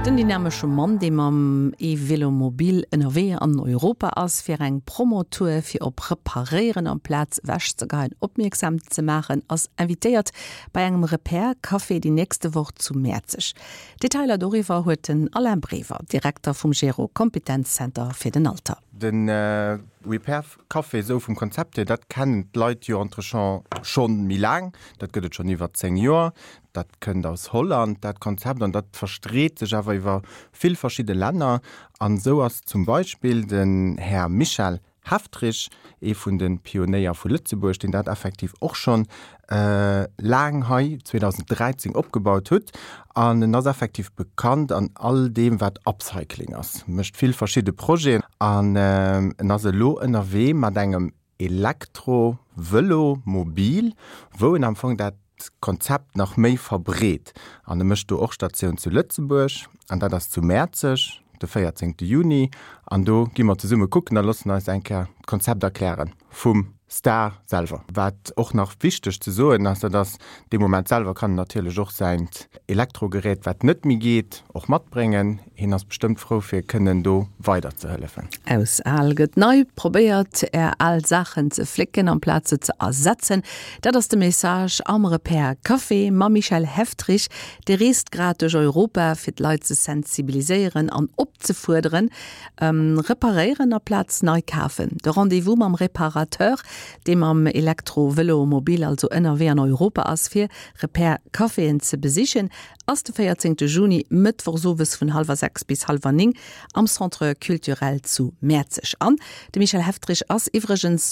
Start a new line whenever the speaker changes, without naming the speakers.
Den dynamesche Mann, dee mam E-Vélomobil ënnerwee an Europa ass, fir eng Promotour fir op Reparéieren amplaz ewechzegeien opmierksam ze maachen, ass invitéiert bei engem Repair Café déi nächste Woch zu Mäerzeg. Detailer doriwwer huet den Alain Brever, Direkter vum Gero Kompetenzzenter fir den Alter.
De Repair Café esou vum Konzept hier, dat kennen d'Leit jo entrechant schonn méi laang. Dat gëtt et schonn iwwer 10 Joer. Dat kënnt aus Holland, dat Konzept, an dat verstreet sech awer iwwer vill verschidde Länner. An esou ass zum Beispill den Här Michel Heftrich, ee vun de Pionéier vu Lëtzebuerg, deen dat effektiv och schonn laang hei 2013 opgebaut hutt. An en ass effektiv bekannt an all deem, wat Upcycling ass, mécht vill verschidde Projeten an en ass elo ënnerwee mat engem Elektro-Vëlo mobil, wou en am Fong dat Konzept nach méi verbreet. An e mécht do och Statioun zu Lëtzebuerg, an dat ass zu Mäerzeg de 14 Juni. An do gi mer zesumme kucken a loossen eis eng Kéier d'Konzept erkläre vum Star selwer. Wat och nach wichteg ze soen ass, dat ass, dee Moment selwer kann en natierlech och säint Elektrogerät, wat net méi geet, och matbréngen. Hien ass bestëmmt frou fir kënnen do weider ze hëllefen.
Aus al gëtt nei, probéiert är al Saachen ze flécken amplaz se ze ersetzen. Dat ass de Message am Repair Café mam Michel Heftrich. Dee reest grad duerch Europa fir d'Leit ze sensibiliséieren an opzefuerderen, reparéieren aplaz nei kafen. De Rendez-vous mam Reparateur, dee mam Elektro-Vëlo-Mobil also ënnerwee an Europa ass fir Repair Caféen ze besichen, ass de 14 Juni, mëttwochs owes vun hallwer 6 bis hallwer 9 am Centre Culturel zu Mäerzeg. An de Michel Heftrich ass iwwregens.